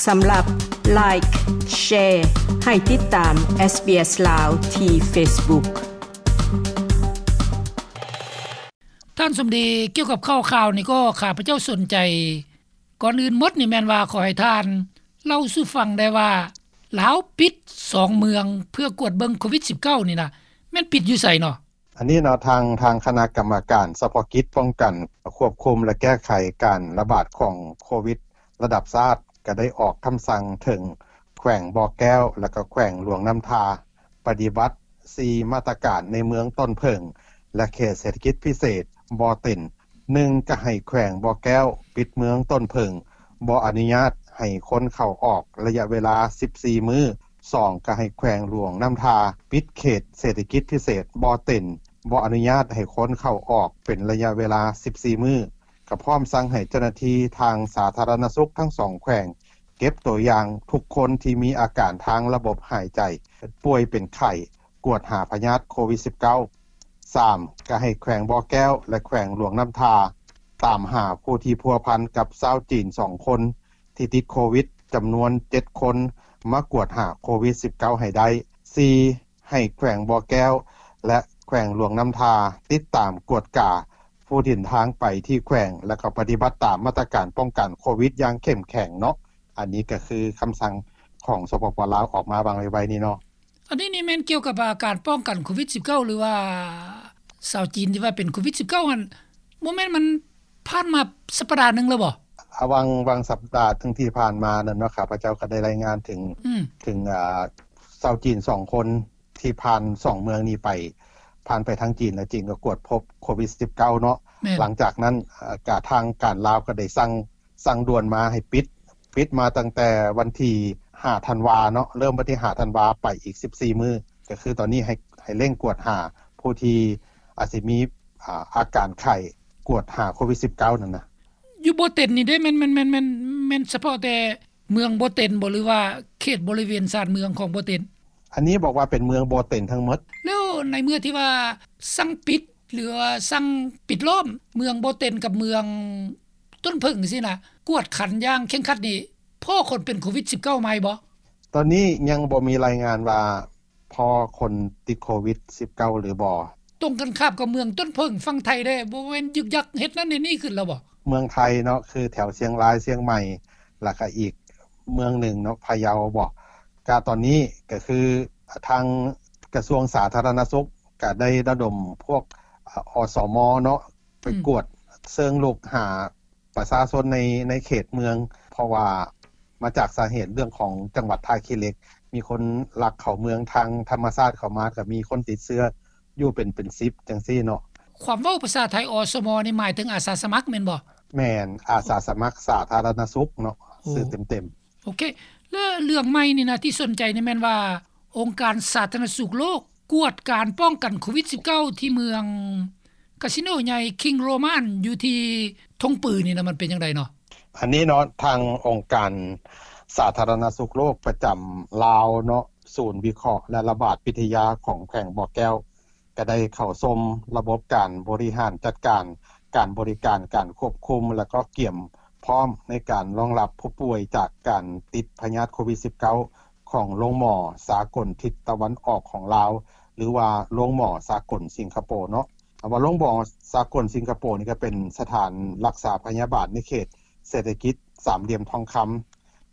ສຳລັບ Like, Share ໃຫ້ຕິດຕາມ SBS ລາວ ທີ່ Facebook. ທ່ານສົມດີ, ກ່ຽວກັບຂ່າວໆນີ້ກໍຂ້າພະເຈົ້າສົນໃຈ. ກ່ອນອື່ນໝົດນີ້ແມ່ນວ່າຂໍໃຫ້ທ່ານເລົ່າສູ່ຟັງໄດ້ວ່າ ລາວປິດສອງເມືອງເພື່ອກວດເບິ່ງໂຄວິດສິບເກົ້ານີ້ນະ ແມ່ນປິດຢູ່ໃສເນາະ? ອັນນີ້ເນາະ ທາງ ທາງຄະນະກຳມະການສະເພາະກິດປ້ອງກັນ, ຄວບຄຸມ ແລະ ແກ້ໄຂການລະບາດຂອງໂຄວິດລະດັບຊາດ ກໍໄດ້ອອກຄຳສັ່ງເຖິງແຂວງບໍ່ແກ້ວ ແລະ ກໍແຂວງຫຼວງນ້ຳທາ ປະຕິບັດສີ່ມາດຕະການໃນເມືອງຕົ້ນເຜິ້ງ ແລະ ເຂດເສດຖະກິດພິເສດບໍ່ເຕັນ. ໜຶ່ງ ກໍໃຫ້ແຂວງບໍ່ແກ້ວປິດເມືອງຕົ້ນເຜິ້ງ, ບໍ່ອະນຸຍາດໃຫ້ຄົນເຂົ້າອອກໄລຍະເວລາສິບສີ່ມື້. ສອງ ກໍໃຫ້ແຂວງຫຼວງນ້ຳທາປິດເຂດເສດຖະກິດພິເສດບໍ່ເຕັນ, ບໍ່ອະນຸຍາດໃຫ້ຄົນເຂົ້າອອກເປັນໄລຍະເວລາສິບສີ່ມື້. ກໍພ້ອມສັ່ງໃຫ້ເຈົ້າໜ້າທີ່ທາງສາທາລະນະສຸກທັງສອງແຂວງ ເກັບຕົວຢ່າງທຸກຄົນທີ່ມີອາການທາງລະບົບຫາຍໃຈ, ເປັນປ່ວຍເປັນໄຂ້, ກວດຫາພະຍາດໂຄວິດສິບເກົ້າ. ສາມ ກໍໃຫ້ແຂວງບໍ່ແກ້ວ ແລະ ແຂວງຫຼວງນ້ຳທາ ຕາມຫາຜູ້ທີ່ພົວພັນກັບຊາວຈີນສອງຄົນທີ່ຕິດໂຄວິດຈຳນວນເຈັດຄົນ ມາກວດຫາໂຄວິດສິບເກົ້າໃຫ້ໄດ້. ສີ່ ໃຫ້ແຂວງບໍ່ແກ້ວ ແລະ ແຂວງຫຼວງນ້ຳທາ ຕິດຕາມກວດກາຜູ້ເດີນທາງໄປທີ່ແຂວງ ແລະ ກໍປະຕິບັດຕາມມາດຕະການປ້ອງກັນໂຄວິດຢ່າງເຂັ້ມແຂງເນາະ. ອັນນີ້ກໍຄືຄຳສັ່ງຂອງ ສປປ ລາວ ອອກມາຫວ່າງໄວໆນີ້ເນາະ. ອັນນີ້ນີ້ແມ່ນກ່ຽວກັບ ອາ ການປ້ອງກັນໂຄວິດສິບເກົ້າ ຫຼືວ່າຊາວຈີນທີ່ວ່າເປັນໂຄວິດສິບເກົ້າຫັ້ນ ບໍ່ແມ່ນມັນຜ່ານມາສັບປະດາໜຶ່ງແລ້ວບໍ່? ອາ ຫວ່າງ ຫວ່າງສັບປະດາໜຶ່ງທີ່ຜ່ານມານັ້ນເນາະ ຂ້າພະເຈົ້າກໍໄດ້ລາຍງານເຖິງ ອືມ ເຖິງ ອາ ຊາວຈີນສອງຄົນທີ່ຜ່ານສອງເມືອງນີ້ໄປ, ຜ່ານໄປທາງຈີນ ແລະ ຈີນກໍກວດພົບໂຄວິດສິບເກົ້າເນາະ. ແມ່ນ. ຫຼັງຈາກນັ້ນ ອາ ກະທາງການລາວກໍໄດ້ສັ່ງ ສັ່ງດ່ວນມາໃຫ້ປິດ, ປິດມາຕັ້ງແຕ່ວັນທີຫ້າທັນວາເນາະ, ເລີ່ມວັນທີຫ້າທັນວາໄປອີກສິບສີ່ມື້, ກໍຄືຕອນນີ້ໃຫ້ ໃຫ້ເລັ່ງກວດຫາຜູ້ທີ່ອາດຊິມີ ອາ ອາການໄຂ້, ກວດຫາໂຄວິດສິບເກົ້ານັ້ນນະ. ຢູ່ບໍ່ເຕັນນີ້ເດ້ ແມ່ນ ແມ່ນ ແມ່ນ ແມ່ນ ແມ່ນສະເພາະແຕ່ເມືອງບໍ່ເຕັນບໍ່ ຫຼືວ່າເຂດບໍລິເວນຊານເມືອງຂອງບໍ່ເຕັນ? ອັນນີ້ບອກວ່າເປັນເມືອງບໍ່ເຕັນທັງໝົດ. ແລ້ວໃນເມື່ອທີ່ວ່າສັ່ງປິດ ຫຼືວ່າສັ່ງປິດລ້ອມເມືອງບໍ່ເຕັນກັບເມືອງ ຕົ້ນເຜິ້ງຊີ້ນະ ກວດຂັນຢ່າງເຄັ່ງຄັດນີ້ ພໍ້ຄົນເປັນໂຄວິດສິບເກົ້າໃໝ່ບໍ່? ຕອນນີ້ຍັງບໍ່ມີລາຍງານວ່າພໍ້ຄົນຕິດໂຄວິດສິບເກົ້າຫຼືບໍ່. ຕົງກັນຂ້າມກັບເມືອງຕົ້ນເຜິ້ງຝັ່ງໄທເດ້ ບໍ່ແມ່ນຍຶກຍັກເຮັດນັ້ນເຮັດນີ້ຂຶ້ນແລ້ວບໍ່? ເມືອງໄທເນາະ ຄືແຖວຊຽງລາຍ ຊຽງໃໝ່ ແລ້ວກະອີກເມືອງໜຶ່ງເນາະ ພະເຍົາບໍ? ກະຕອນນີ້ກະຄືທາງກະຊວງສາທາລະນະສຸກກະໄດ້ລະດົມພວກ ອສມ ເນາະ ໄປ ອືມ ກວດເຊີງລຸກຫາ ປະຊາຊົນໃນ ໃນເຂດເມືອງ ເພາະວ່າມາຈາກສາເຫດເລື່ອງຂອງຈັງຫວັດທ່າຂີ້ເຫຼັກ ມີຄົນລັກເຂົ້າເມືອງທາງທຳມະຊາດເຂົ້າມາ ກໍມີຄົນຕິດເຊື້ອຢູ່ເປັນ ເປັນສິບຈັ່ງຊີ້ເນາະ. ຄວາມເວົ້າພາສາໄທ ອສມ ນີ້ໝາຍເຖິງອາສາສະໝັກແມ່ນບໍ່? ແມ່ນ, ອາສາສະໝັກສາທາລະນະສຸກເນາະ ໂອ້ ຊື່ເຕັມໆ. ໂອເຄ ແລະ ເລື່ອງໃໝ່ນີ້ນະ ທີ່ສົນໃຈນີ້ແມ່ນວ່າ ອົງການສາທາລະນະສຸກໂລກ ກວດການປ້ອງກັນໂຄວິດສິບເກົ້າ ທີ່ເມືອງກາສິໂນໃຫຍ່ ຄິງສ໌ໂຣມັນ ຢູ່ທີ່ທົ່ງປືນີ້ນະ ມັນເປັນຈັ່ງໃດເນາະ? ອັນນີ້ເນາະ ທາງອົງການສາທາລະນະສຸກໂລກປະຈຳລາວເນາະ ສູນວິເຄາະ ແລະ ລະບາດວິທະຍາຂອງແຂວງບໍ່ແກ້ວ ກໍໄດ້ເຂົ້າຊົມລະບົບການບໍລິຫານຈັດການ ການບໍລິການ ການຄວບຄຸມ ແລະ ກໍກຽມພ້ອມໃນການຮອງຮັບຜູ້ປ່ວຍຈາກການຕິດພະຍາດໂຄວິດສິບເກົ້າ ຂອງໂລງໝໍສາກົນທິດຕາເວັນອອກຂອງລາວ ຫຼືວ່າໂລງໝໍສາກົນສິງກະໂປເນາະ. ຄຳວ່າໂລງໝໍສາກົນສິງກະໂປນີ້ກໍເປັນສະຖານລັກສາພະຍາບານໃນເຂດເສດຖະກິດສາມຫຼ່ຽມທອງຄຳ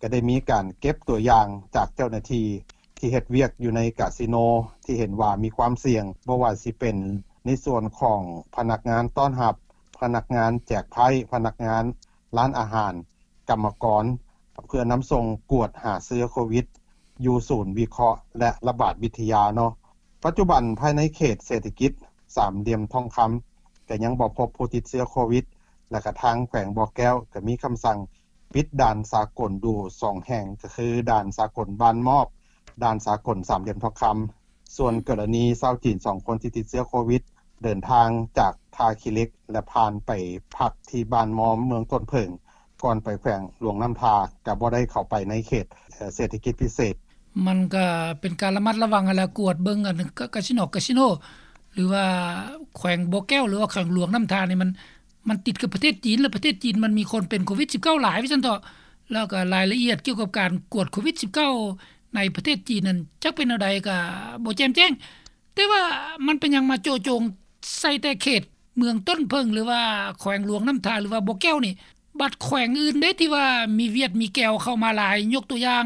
ກໍໄດ້ມີການເກັບຕົວຢ່າງຈາກເຈົ້າໜ້າທີ່ທີ່ເຮັດວຽກຢູ່ໃນກາສິໂນ ທີ່ເຫັນວ່າມີຄວາມສ່ຽງ, ບໍ່ວ່າຊິເປັນໃນສ່ວນຂອງພະນັກງານຕ້ອນຮັບ, ພະນັກງານແຈກໄພ້, ພະນັກງານຮ້ານອາຫານ, ກຳມະກອນ ເພື່ອນຳສົ່ງກວດຫາເຊື້ອໂຄວິດ ຢູ່ສູນວິເຄາະ ແລະ ລະບາດວິທະຍາເນາະ. ປັດຈຸບັນພາຍໃນເຂດເສດຖະກິດສາມຫຼ່ຽມທອງຄຳ ກໍຍັງບໍ່ພົບຜູ້ຕິດເຊື້ອໂຄວິດ ແລະ ກະທາງແຂວງບໍ່ແກ້ວກໍມີຄຳສັ່ງປິດດ່ານສາກົນຢູ່ສອງແຫ່ງ ກໍຄືດ່ານສາກົນບ້ານມອບ, ດ່ານສາກົນສາມຫຼ່ຽມທອງຄຳ. ສ່ວນກໍລະນີຊາວຈີນສອງຄົນທີ່ຕິດເຊື້ອໂຄວິດ ເດີນທາງຈາກທ່າຂີ້ເຫຼັກ ແລະ ຜ່ານໄປພັກທີ່ບ້ານມອມ ເມືອງຕົ້ນເຜິ້ງ ກ່ອນໄປແຂວງຫຼວງນ້ຳທາ ກໍບໍ່ໄດ້ເຂົ້າໄປໃນເຂດ ເອີ ເສດຖະກິດພິເສດ. ມັນກໍເປັນການລະມັດລະວັງຫັ້ນແຫຼະ ກວດເບິ່ງ ອັນ ກາ ກາສິໂນ ກາສິໂນ ຫຼືວ່າແຂວງບໍ່ແກ້ວ ຫຼືວ່າແຂວງຫຼວງນ້ຳທານີ້ ມັນ ມັນຕິດກັບປະເທດຈີນ ແລະ ປະເທດຈີນມັນມີຄົນເປັນໂຄວິດສິບເກົ້າຫຼາຍ ວ່າຊັ້ນເຖາະ. ແລ້ວກໍລາຍລະອຽດກ່ຽວກັບການກວດໂຄວິດສິບເກົ້າໃນປະເທດຈີນນັ້ນ ຈັກເປັນແນວໃດກໍບໍ່ແຈ່ມແຈ້ງ. ແຕ່ວ່າມັນເປັນຫຍັງມາໂຈະຈົງໃສ່ແຕ່ເຂດເມືອງຕົ້ນເຜິ້ງ ຫຼືວ່າແຂວງຫຼວງນ້ຳທາ ຫຼືວ່າບໍ່ແກ້ວນີ້? ບັດແຂວງອື່ນເດ້ທີ່ວ່າມີຫວຽດມີແກ້ວເຂົ້າມາຫຼາຍ, ຍົກຕົວຢ່າງ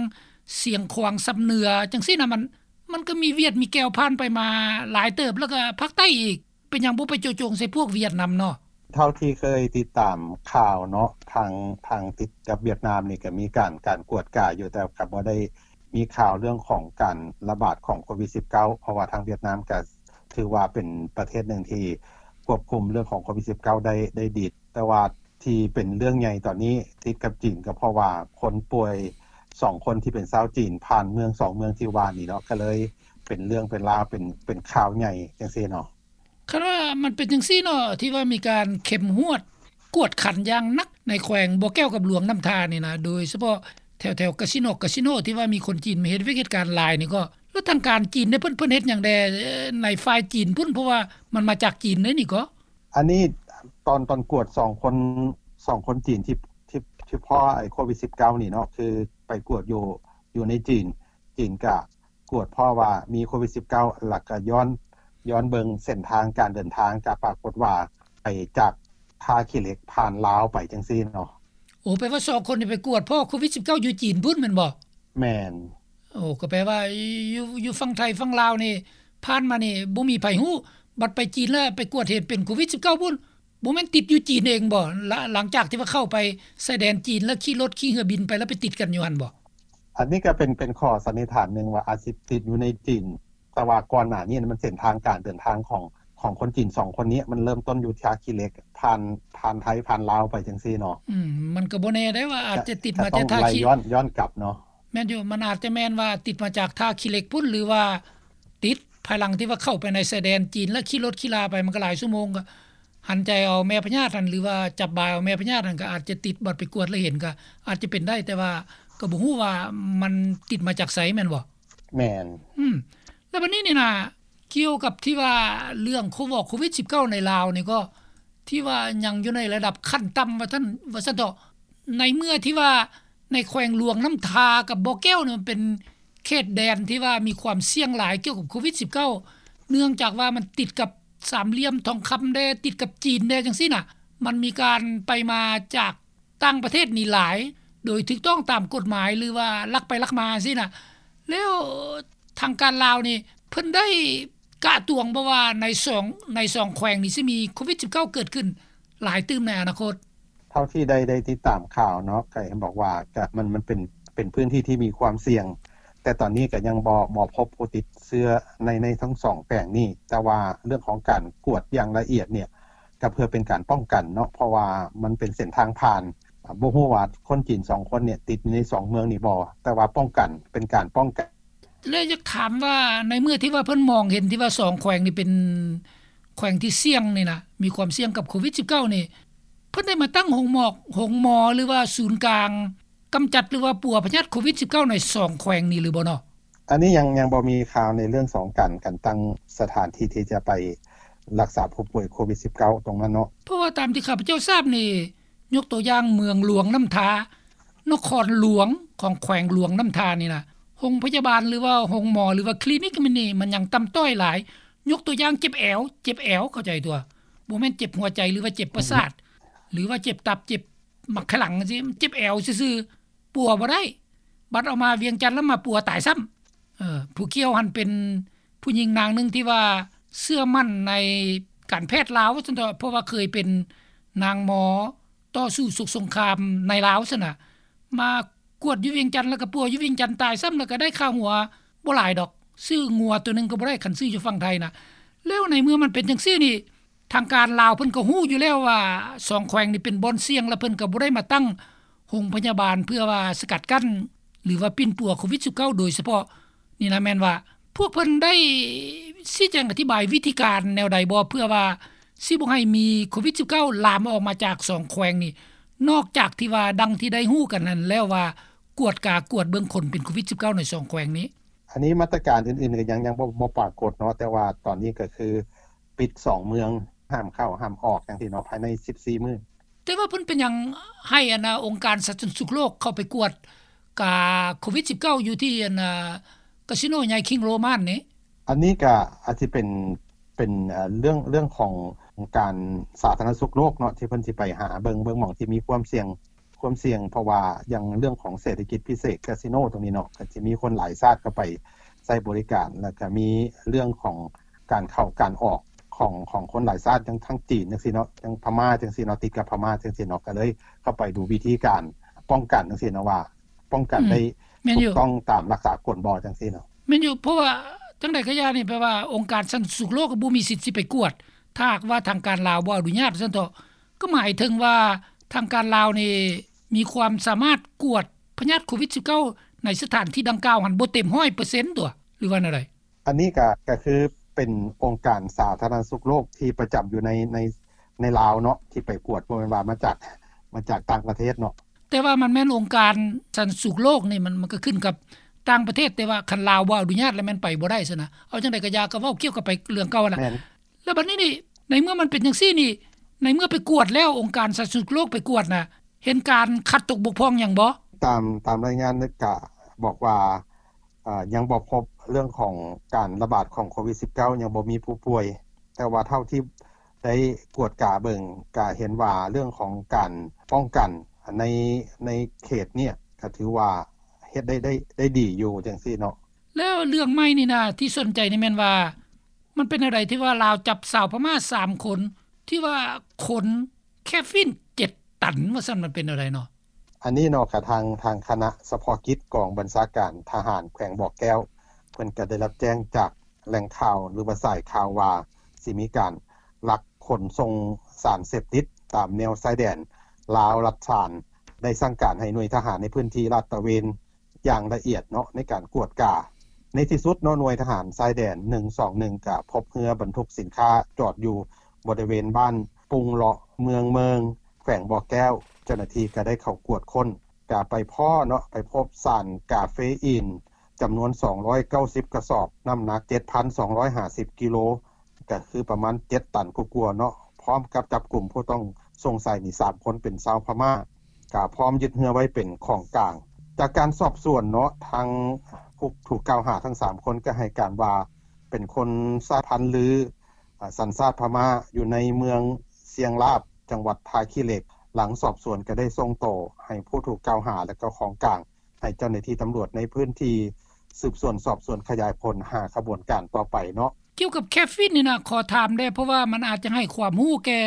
ຊຽງຂວາງຊຳເໜືອຈັ່ງຊີ້ນະ, ມັນ ມັນກໍມີຫວຽດມີແກ້ວຜ່ານໄປມາຫຼາຍເຕີບ, ແລ້ວກໍພາກໃຕ້ອີກ. ເປັນຫຍັງບໍ່ໄປໂຈະຈົງໃສ່ພວກຫວຽດນຳເນາະ? ເທົ່າທີ່ເຄີຍຕິດຕາມຂ່າວເນາະ ທາງ ທາງຕິດກັບຫວຽດນາມນີ້ກໍມີການ ການກວດກາຢູ່, ແຕ່ກໍບໍ່ໄດ້ມີຂ່າວເລື່ອງຂອງການລະບາດຂອງໂຄວິດສິບເກົ້າ ເພາະວ່າທາງຫວຽດນາມກໍຖືວ່າເປັນປະເທດໜຶ່ງທີ່ຄວບຄຸມເລື່ອງຂອງໂຄວິດສິບເກົ້າໄດ້ ໄດ້ດີ. ແຕ່ວ່າທີ່ເປັນເລື່ອງໃຫຍ່ຕອນນີ້ຕິດກັບຈີນ ກໍເພາະວ່າຄົນປ່ວຍສອງຄົນທີ່ເປັນຊາວຈີນຜ່ານເມືອງສອງເມືອງທີ່ວ່ານີ້ເນາະ, ກໍເລີຍເປັນເລື່ອງເປັນລາວ ເປັນ ເປັນຂ່າວໃຫຍ່ຈັ່ງຊີ້ເນາະ. ຄັນວ່າມັນເປັນຈັ່ງຊີ້ເນາະ ທີ່ວ່າມີການເຂັ້ມງວດກວດຂັນຢ່າງໜັກໃນແຂວງບໍ່ແກ້ວກັບຫຼວງນ້ຳທານີ້ນະ, ໂດຍສະເພາະແຖວໆກາສິໂນ ກາສິໂນ ທີ່ວ່າມີຄົນຈີນມາເຮັດວຽກເຮັດການຫຼາຍນີ້ກໍ ແລ້ວທາງການຈີນເດ້ ເພິ່ນ ເພິ່ນເຮັດຫຍັງແດ່ໃນຝ່າຍຈີນພຸ້ນ? ເພາະວ່າມັນມາຈາກຈີນເດ້ນີ້ກໍ. ອັນນີ້ຕອນ ຕອນກວດສອງຄົນ ສອງຄົນຈີນທີ່ ທີ່ ທີ່ພໍ້ໄອ້ໂຄວິດສິບເກົ້ານີ້ເນາະ ຄືໄປກວດຢູ່ ຢູ່ໃນຈີນ, ຈີນກະ ກວດພໍ້ວ່າມີໂຄວິດສິບເກົ້າ ແລ້ວກະຍ້ອນ ຍ້ອນເບິ່ງເສັ້ນທາງການເດີນທາງ ກະປາກົດວ່າໄປຈາກທ່າຂີ້ເຫຼັກຜ່ານລາວໄປຈັ່ງຊີ້ເນາະ. ໂອ້ ແປວ່າສອງຄົນນີ້ໄປກວດພໍ້ໂຄວິດສິບເກົ້າຢູ່ຈີນພຸ້ນແມ່ນບໍ່? ແມ່ນ. ໂອ້ ກໍແປວ່າຢູ່ ຢູ່ຝັ່ງໄທຝັ່ງລາວນີ້ຜ່ານມານີ້ບໍ່ມີໃຜຮູ້, ບັດໄປຈີນແລ້ວໄປກວດເຫັນເປັນໂຄວິດສິບເກົ້າພຸ້ນ. ບໍ່ແມ່ນຕິດຢູ່ຈີນເອງບໍ່? ລະ ຫຼັງຈາກທີ່ວ່າເຂົ້າໄປຊາຍແດນຈີນ ແລ້ວຂີ່ລົດຂີ່ເຮືອບິນໄປ ແລ້ວໄປຕິດກັນຢູ່ຫັ້ນບໍ່? ອັນນີ້ກໍເປັນ ເປັນຂໍ້ສັນນິຖານໜຶ່ງວ່າອາດຊິຕິດຢູ່ໃນຈີນ, ແຕ່ວ່າກ່ອນໜ້ານີ້ມັນເສັ້ນທາງການເດີນທາງຂອງ ຂອງຄົນຈີນສອງຄົນນີ້ ມັນເລີ່ມຕົ້ນຢູ່ທ່າຂີ້ເຫຼັກ ຜ່ານ ຜ່ານໄທ ຜ່ານລາວໄປຈັ່ງຊີ້ເນາະ. ອືມ ມັນກໍບໍ່ແນ່ເດ້ວ່າອາດຈະຕິດມາແຕ່ທ່າຂີ້ ກໍຕ້ອງໄລ່ຍ້ອນ ຍ້ອນກັບເນາະ. ແມ່ນຢູ່ ມັນອາດຈະແມ່ນວ່າຕິດມາຈາກທ່າຂີ້ເຫຼັກພຸ້ນ ຫຼືວ່າຕິດພາຍຫຼັງທີ່ວ່າເຂົ້າໄປໃນຊາຍແດນຈີນ ແລ້ວຂີ່ລົດຂີ່ລາໄປ ມັນກໍຫຼາຍຊົ່ວໂມງ ກໍ ຫັນໃຈເອົາແມ່ພະຍາດຫັ້ນ ຫຼືວ່າຈັບບາຍເອົາແມ່ພະຍາດຫັ້ນ ກໍອາດຈະຕິດ, ບັດໄປກວດແລ້ວເຫັນ ກໍອາດຈະເປັນໄດ້, ແຕ່ວ່າກໍບໍ່ຮູ້ວ່າມັນຕິດມາຈາກໃສແມ່ນບໍ່? ແມ່ນ. ອືມ ແລ້ວບັດນີ້ນີ້ນະ ກ່ຽວກັບທີ່ວ່າເລື່ອງໂຄ ໂຄວິດສິບເກົ້າໃນລາວນີ້ ກໍທີ່ວ່າຍັງຢູ່ໃນລະດັບຂັ້ນຕ່ຳວ່າຊັ້ນ ວ່າຊັ້ນເຖາະ, ໃນເມື່ອທີ່ວ່າໃນແຂວງຫຼວງນ້ຳທາກັບບໍ່ແກ້ວນີ້ ມັນເປັນເຂດແດນທີ່ວ່າມີຄວາມສ່ຽງຫຼາຍກ່ຽວກັບໂຄວິດສິບເກົ້າ ເນື່ອງຈາກວ່າມັນຕິດກັບ ສາມຫຼ່ຽມທອງຄຳແດ່ ຕິດກັບຈີນແດ່ ຈັ່ງຊີ້ນະ, ມັນມີການໄປມາຈາກຕ່າງປະເທດນີ້ຫຼາຍ ໂດຍຖືກຕ້ອງຕາມກົດໝາຍ ຫຼືວ່າລັກໄປລັກມາຊີ້ນະ. ແລ້ວທາງການລາວນີ້ ເພິ່ນໄດ້ກະຕວງບໍ່ວ່າໃນສອງ ໃນສອງແຂວງນີ້ຊິມີໂຄວິດສິບເກົ້າເກີດຂຶ້ນຫຼາຍຕື່ມໃນອະນາຄົດ? ເທົ່າທີ່ໄດ້ ໄດ້ຕິດຕາມຂ່າວເນາະ ກໍເຫັນບອກວ່າ ກະ ມັນ ມັນເປັນ ເປັນພື້ນທີ່ທີ່ມີຄວາມສ່ຽງ ແຕ່ຕອນນີ້ກໍຍັງບໍ່ ບໍ່ພົບຜູ້ຕິດເຊື້ອໃນ ໃນທັງສອງແຂວງນີ້, ແຕ່ວ່າເລື່ອງຂອງການກວດຢ່າງລະອຽດເນຍ ກໍເພື່ອເປັນການປ້ອງກັນເນາະ ເພາະວ່າມັນເປັນເສັ້ນທາງຜ່ານ. ບໍ່ຮູ້ວ່າຄົນຈີນສອງຄົນເນຍຕິດຢູ່ໃນສອງເມືອງນີ້ບໍ່, ແຕ່ວ່າປ້ອງກັນ ເປັນການປ້ອງກັນ. ແລະ ຢາກຖາມວ່າ ໃນເມື່ອທີ່ວ່າເພິ່ນມອງເຫັນທີ່ວ່າສອງແຂວງນີ້ເປັນແຂວງທີ່ສ່ຽງນີ້ນະ ມີຄວາມສ່ຽງກັບໂຄວິດສິບເກົ້ານີ້ ເພິ່ນໄດ້ມາຕັ້ງໂຮງໝໍ ໂຮງໝໍ ຫຼືວ່າສູນກາງ ກຳຈັດ ຫຼືວ່າປົວພະຍາດໂຄວິດສິບເກົ້າໃນສອງແຂວງນີ້ຫຼືບໍ່ເນາະ? ອັນນີ້ຍັງ ຍັງບໍ່ມີຂ່າວໃນເລື່ອງຂອງການ ການຕັ້ງສະຖານທີ່ທີ່ຈະໄປລັກສາຜູ້ປ່ວຍໂຄວິດສິບເກົ້າຕົງນັ້ນເນາະ. ເພາະວ່າຕາມທີ່ຂ້າພະເຈົ້າຊາບນີ້ ຍົກຕົວຢ່າງເມືອງຫຼວງນ້ຳທາ ນະຄອນຫຼວງຂອງແຂວງຫຼວງນ້ຳທານີ້ນະ ໂຮງພະຍາບານ ຫຼືວ່າໂຮງໝໍ ຫຼືວ່າຄລີນິກມັນນີ້ ມັນຍັງຕ່ຳຕ້ອຍຫຼາຍ. ຍົກຕົວຢ່າງເຈັບແອວ ເຈັບແອວ ເຂົ້າໃຈຕົວະ ບໍ່ແມ່ນເຈັບຫົວໃຈ ຫຼືວ່າເຈັບປະສາດ ຫຼືວ່າເຈັບຕັບ ເຈັບ ໝາກຂະຫຼັງຈັ່ງຊີ້ ເຈັບແອວຊື່ໆ ປົວບໍ່ໄດ້, ບັດເອົາມາວຽງຈັນແລ້ວມາປົວຕາຍຊ້ຳ. ເອີ ຜູ້ກ່ຽວຫັ້ນເປັນຜູ້ຍິງນາງໜຶ່ງທີ່ວ່າເຊື່ອໝັ້ນໃນການແພດລາວວ່າຊັ້ນເຖາະ ເພາະວ່າເຄີຍເປັນນາງໝໍຕໍ່ສູ້ສົກສົງຄາມໃນລາວຊັ້ນນະ, ມາກວດຢູ່ວຽງຈັນ ແລ້ວກໍປົວຢູ່ວຽງຈັນຕາຍຊ້ຳ ແລ້ວກໍໄດ້ຄ່າຫົວບໍ່ຫຼາຍດອກ, ຊື້ງົວຕົວໜຶ່ງກໍບໍ່ໄດ້ ຄັນຊື້ຢູ່ຝັ່ງໄທນະ. ແລ້ວໃນເມື່ອມັນເປັນຈັ່ງຊີ້ນີ້ ທາງການລາວເພິ່ນກໍຮູ້ຢູ່ແລ້ວວ່າສອງແຂວງນີ້ເປັນບ່ອນສ່ຽງ ແລະ ເພິ່ນກໍບໍ່ໄດ້ມາຕັ້ງໂຮງພະຍາບານເພື່ອວ່າສະກັດກັ້ນ ຫຼືວ່າປິ່ນປົວໂຄວິດສິບເກົ້າໂດຍສະເພາະນີ້ນະ. ແມ່ນວ່າພວກເພິ່ນໄດ້ຊີ້ແຈງອະທິບາຍວິທີການແນວໃດບໍ່ ເພື່ອວ່າຊິບໍ່ໃຫ້ມີໂຄວິດສິບເກົ້າລາມອອກມາຈາກສອງແຂວງນີ້ ນອກຈາກທີ່ວ່າດັ່ງທີ່ໄດ້ຮູ້ກັນນັ້ນແລ້ວວ່າ ກວດກາກວດເບິ່ງຄົນເປັນໂຄວິດສິບເກົ້າໃນສອງແຂວງນີ້? ອັນນີ້ມາດຕະການອື່ນໆກໍຍັງ ຍັງບໍ່ ບໍ່ປາກົດເນາະ, ແຕ່ວ່າຕອນນີ້ກໍຄື ປິດສອງເມືອງ ຫ້າມເຂົ້າຫ້າມອອກຈັ່ງຊີ້ເນາະ ພາຍໃນສິບສີ່ມື້. ແຕ່ວ່າເພິ່ນເປັນຫຍັງໃຫ້ອັນນ່າ ອົງການສາທາລະນະສຸກໂລກເຂົ້າໄປກວດກາໂຄວິດສິບເກົ້າ ຢູ່ທີ່ອັນນ່າ ກາສິໂນໃຫຍ່ຄິງໂຣມັນນີ້? ອັນນີ້ກະອາດຊິເປັນ ເປັນ ເອີ່ ເລື່ອງ ເລື່ອງຂອງອົງການສາທາລະນະສຸກໂລກເນາະ ທີ່ເພິ່ນຊິໄປຫາເບິ່ງ ເບິ່ງໝ່ອງທີ່ມີຄວາມສ່ຽງ ຄວາມສ່ຽງ ເພາະວ່າຢ່າງເລື່ອງຂອງເສດຖະກິດພິເສດ ກາສິໂນຕົງນີ້ເນາະ ກໍຈະມີຄົນຫຼາຍຊາດເຂົ້າໄປໃຊ້ບໍລິການ ແລ້ວກໍມີເລື່ອງຂອງການເຂົ້າການອອກຂອງ ຂອງຄົນຫຼາຍຊາດ ຢ່າງທາງຈີນຈັ່ງຊີ້ເນາະ ຢ່າງພະມ້າຈັ່ງຊີ້ເນາະ ຕິດກັບພະມ້າຈັ່ງຊີ້ເນາະ ກໍເລີຍເຂົ້າໄປດູວິທີການປ້ອງກັນຈັ່ງຊີ້ເນາະ ວ່າປ້ອງກັນໄດ້ ແມ່ນຢູ່ ຖືກຕ້ອງຕາມຫຼັກສາກົນບໍ່ ຈັ່ງຊີ້ເນາະ. ແມ່ນຢູ່ ເພາະວ່າຈັ່ງໃດກໍຢ່ານີ້ ແປວ່າອົງການສາທາລະນະສຸກໂລກກໍບໍ່ມີສິດຊິໄປກວດ ຖ້າຫາກວ່າທາງການລາວບໍ່ອະນຸຍາດ ວ່າຊັ້ນເຖາະ. ກໍໝາຍເຖິງວ່າທາງການລາວນີ້ມີຄວາມສາມາດກວດພະຍາດໂຄວິດສິບເກົ້າ ໃນສະຖານທີ່ດັ່ງກ່າວຫັ້ນບໍ່ເຕັມຮ້ອຍເປີເຊັນຕົວະ ຫຼືວ່າແນວໃດ? ອັນນີ້ກະ ກະຄືເປັນອົງການສາທາລະນະສຸກໂລກທີ່ປະຈຳຢູ່ໃນ ໃນ ໃນລາວເນາະ ທີ່ໄປກວດ ບໍ່ແມ່ນວ່າມາຈາກ ມາຈາກຕ່າງປະເທດເນາະ. ແຕ່ວ່າມັນແມ່ນອົງການສາທາລະນະສຸກໂລກນີ້ ມັນ ມັນກໍຂຶ້ນກັບຕ່າງປະເທດ ແຕ່ວ່າຄັນລາວບໍ່ອະນຸຍາດແລ້ວແມ່ນໄປບໍ່ໄດ້ຊັ້ນນະ. ເອົາຈັ່ງໃດກໍຢ່າ ກໍເວົ້າກ່ຽວກັບໄປເລື່ອງເກົ່າຫັ້ນນະ. ແມ່ນ. ແລ້ວບັດນີ້ນີ້ ໃນເມື່ອມັນເປັນຈັ່ງຊີ້ນີ້ ໃນເມື່ອໄປກວດແລ້ວ ອົງການສາທາລະນະສຸກໂລກໄປກວດນະ ເຫັນການຂາດຕົກບົກຜ່ອງຫຍັງບໍ່? ຕາມ ຕາມລາຍງານກະບອກວ່າ ເອີ່ ຍັງບໍ່ພົບເລື່ອງຂອງການລະບາດຂອງໂຄວິດສິບເກົ້າ ຍັງບໍ່ມີຜູ້ປ່ວຍ ແຕ່ວ່າເທົ່າທີ່ໄດ້ກວດກາເບິ່ງ ກະເຫັນວ່າເລື່ອງຂອງການປ້ອງກັນໃນ ໃນເຂດເນີ້ຍ ກະຖືວ່າເຮັດໄດ້ ໄດ້ ໄດ້ດີຢູ່ຈັ່ງຊີ້ເນາະ. ແລ້ວເລື່ອງໃໝ່ນີ້ນະ ທີ່ສົນໃຈນີ້ແມ່ນວ່າ ມັນເປັນແນວໃດທີ່ວ່າລາວຈັບຊາວພະມ້າສາມຄົນ ທີ່ວ່າຂົນແຄຟິນເຈັດຕັນ ວ່າຊັ້ນ ມັນເປັນແນວໃດເນາະ? ອັນນີ້ເນາະ ກະທາງ ທາງຄະນະສະເພາະກິດກອງບັນຊາການທະຫານແຂວງບໍ່ແກ້ວ ເພິ່ນກະໄດ້ຮັບແຈ້ງຈາກແຫຼ່ງຂ່າວ ຫຼືວ່າສາຍຂ່າວວ່າ ຊິມີການລັກຂົນສົ່ງສານເສບຕິດຕາມແນວຊາຍແດນລາວ-ລັດສານ ໄດ້ສັ່ງການໃຫ້ໜ່ວຍທະຫານໃນພື້ນທີ່ລາດຕະເວນ ຢ່າງລະອຽດເນາະ ໃນການກວດກາ. ໃນທີ່ສຸດເນາະ ໜ່ວຍທະຫານຊາຍແດນໜຶ່ງສອງໜຶ່ງ ກະພົບເຮືອບັນທຸກສິນຄ້າຈອດຢູ່ບໍລິເວນບ້ານປຸງເລາະ ເມືອງເມີງ ແຂວງບໍ່ແກ້ວ. ເຈົ້າໜ້າທີ່ກະໄດ້ເຂົ້າກວດຄົ້ນ ກະໄປພໍ້ເນາະ ໄປພົບສານກາເຟອີນຈຳນວນສອງຮ້ອຍເກົ້າສິບກະສອບ ນ້ຳໜັກເຈັດພັນສອງຮ້ອຍຫ້າສິບກິໂລ ກະຄືປະມານເຈັດຕັນກວ່າໆເນາະ ພ້ອມກັບຈັບກຸມຜູ້ຕ້ອງສົງໄສນີ້ສາມຄົນເປັນຊາວພະມ້າ ກະພ້ອມຍຶດເຮືອໄວ້ເປັນຂອງກາງ. ຈາກການສອບສວນເນາະ ທາງຜູ້ຖືກກ່າວຫາທັງສາມຄົນກະໃຫ້ການວ່າ ເປັນຄົນສາຍພັນລື ອາ ສັນຊາດພະມ້າ ຢູ່ໃນເມືອງຊຽງລາບ ຈັງຫວັດທ່າຂີ້ເຫຼັກ. ຫຼັງສອບສວນກະໄດ້ສົ່ງໂຕໃຫ້ຜູ້ຖືກກ່າວຫາ ແລະ ກໍຂອງກາງ ໃຫ້ເຈົ້າໜ້າທີ່ຕຳຫຼວດໃນພື້ນທີ່ສືບສວນສອບສວນຂະຫຍາຍຜົນຫາຂະບວນການຕໍ່ໄປເນາະ. ກ່ຽວກັບແຄຟິນນີ້ນະ ຂໍຖາມແດ່ ເພາະວ່າມັນອາດຈະໃຫ້ຄວາມຮູ້ແກ່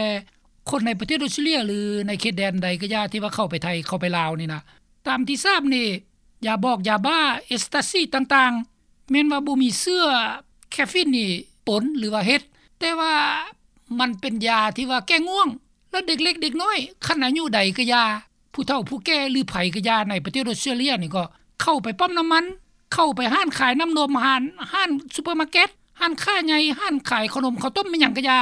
ຄົນໃນປະເທດອອສເຕຣເລຍ ຫຼື ໃນເຂດແດນໃດກໍຢ່າ ທີ່ວ່າເຂົ້າໄປໄທ ເຂົ້າໄປລາວນີ້ນະ ຕາມທີ່ຊາບນີ້ ຢາບອກ ຢາບ້າ ເອສຕາຊີຕ່າງໆ ແມ່ນວ່າບໍ່ມີເຊື້ອແຄຟິນນີ້ປົນ ຫຼືວ່າເຮັດ ແຕ່ວ່າມັນເປັນຢາທີ່ວ່າແກ້ງ່ວງ ແລະ ເດັກເລັກເດັກນ້ອຍ ຄັນອາຍຸໃດກໍຢ່າ ຜູ້ເຖົ້າຜູ້ແກ່ ຫຼື ໃຜກໍຢ່າ ໃນປະເທດອອສເຕຣເລຍນີ້ກໍເຂົ້າໄປປ້ຳນ້ຳມັນ ເຂົ້າໄປຮ້ານຂາຍນ້ຳນົມ ຮ້ານ ຮ້ານຊຸບເປີມາເກັດ ຮ້ານຄ້າໃຫຍ່ ຮ້ານຂາຍເຂົ້າໜົມເຂົ້າຕົ້ມ ແມ່ນຫຍັງກໍຢ່າ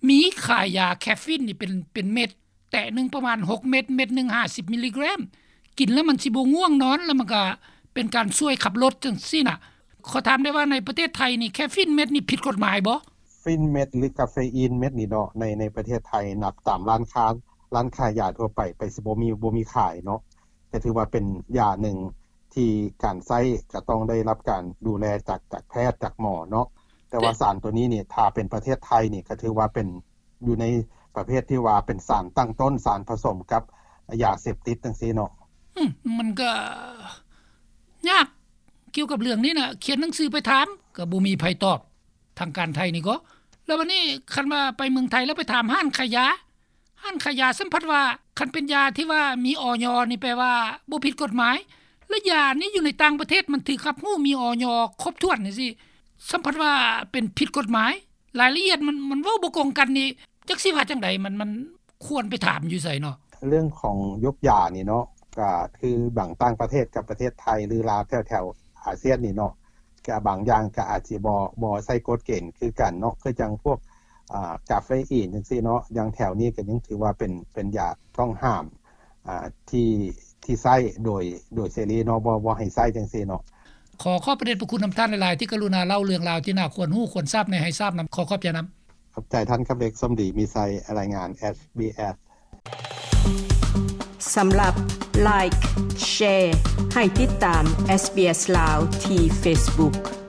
ມີຂາຍຢາແຄຟິນນີ້ເປັນ ເປັນເມັດ ແຕະໜຶ່ງປະມານຫົກເມັດ ເມັດໜຶ່ງຫ້າສິບມິລລີແກຣມ ກິນແລ້ວມັນຊິບໍ່ງ່ວງນອນ ແລ້ວມັນກະເປັນການຊ່ວຍຂັບລົດຈັ່ງຊີ້ນະ. ຂໍຖາມໄດ້ວ່າໃນປະເທດໄທນີ້ ແຄຟິນເມັດນີ້ຜິດກົດໝາຍບໍ່? ຟິນເມັດ ຫຼື ກາເຟອີນເມັດນີ້ເນາະ ໃນ ໃນປະເທດໄທ ນັບຕາມຮ້ານຄ້າ ຮ້ານຂາຍຢາທົ່ວໄປ ໄປຊິບໍ່ມີ ບໍ່ມີຂາຍເນາະ ກະຖືວ່າເປັນຢາໜຶ່ງທີ່ການໃຊ້ກະຕ້ອງໄດ້ຮັບການດູແລຈາກ ຈາກແພດ ຈາກໝໍເນາະ. ແຕ່ວ່າສານໂຕນີ້ນີ້ ຖ້າເປັນປະເທດໄທນີ້ ກະຖືວ່າເປັນ ຢູ່ໃນປະເພດທີ່ວ່າເປັນສານຕັ້ງຕົ້ນ ສານຜະສົມກັບຢາເສບຕິດຈັ່ງຊີ້ເນາະ. ອືມ ມັນກໍຍາກກ່ຽວກັບເລື່ອງນີ້ນະ ຂຽນໜັງສືໄປຖາມກໍບໍ່ມີໃຜຕອບ ທາງການໄທນີ້ກໍ. ແລ້ວບັດນີ້ຄັນວ່າໄປເມືອງໄທແລ້ວໄປຖາມຮ້ານຂາຍຢາ ຮ້ານຂາຍຢາສ່ຳພັດວ່າ ຄັນເປັນຢາທີ່ວ່າມີ ອຢ ນີ້ແປວ່າບໍ່ຜິດກົດໝາຍ ແລະ ຢານີ້ຢູ່ໃນຕ່າງປະເທດມັນຖືກຮັບຮູ້ມີ ອຢ ຄົບຖ້ວນຈັ່ງຊີ້ ສ່ຳພັດວ່າເປັນຜິດກົດໝາຍ ລາຍລະອຽດມັນ ມັນເວົ້າບໍ່ກົງກັນນີ້ ຈັກຊິວ່າຈັ່ງໃດ ມັນ ມັນຄວນໄປຖາມຢູ່ໃສເນາະ? ເລື່ອງຂອງຍຸກຢານີ້ເນາະ ກະຄືບາງຕ່າງປະເທດກັບປະເທດໄທ ຫຼື ລາວແຖວໆອາຊຽນນີ້ເນາະ ກະບາງຢ່າງກະອາດຊິບໍ່ ບໍ່ໃຊ້ກົດເກນຄືກັນເນາະ ຄືຈັ່ງພວກ ອາ ກາເຟອີນຈັ່ງຊີ້ເນາະ ຢ່າງແຖວນີ້ກະຍັງຖືວ່າເປັນ ເປັນຢາຕ້ອງຫ້າມ ອາ ທີ່ ທີ່ໃຊ້ໂດຍ ໂດຍເສລີເນາະ ບໍ່ ບໍ່ໃຫ້ໃຊ້ຈັ່ງຊີ້ເນາະ. ຂໍຂອບພະເດດພະຄຸນນຳທ່ານຫຼາຍໆ ທີ່ກະລຸນາເລົ່າເລື່ອງລາວທີ່ໜ້າຄວນຮູ້ຄວນຊາບໃຫ້ ໃຫ້ຊາບນຳ. ຂໍຂອບໃຈນຳ. ຂອບໃຈທ່ານຄຳເລັກ ສົມດີມີໄຊ ລາຍງານ ເອສບີເອສ ສຳລັບ Like Share ໃຫ້ຕິດຕາມ SBS ລາວ ທີ່ Facebook.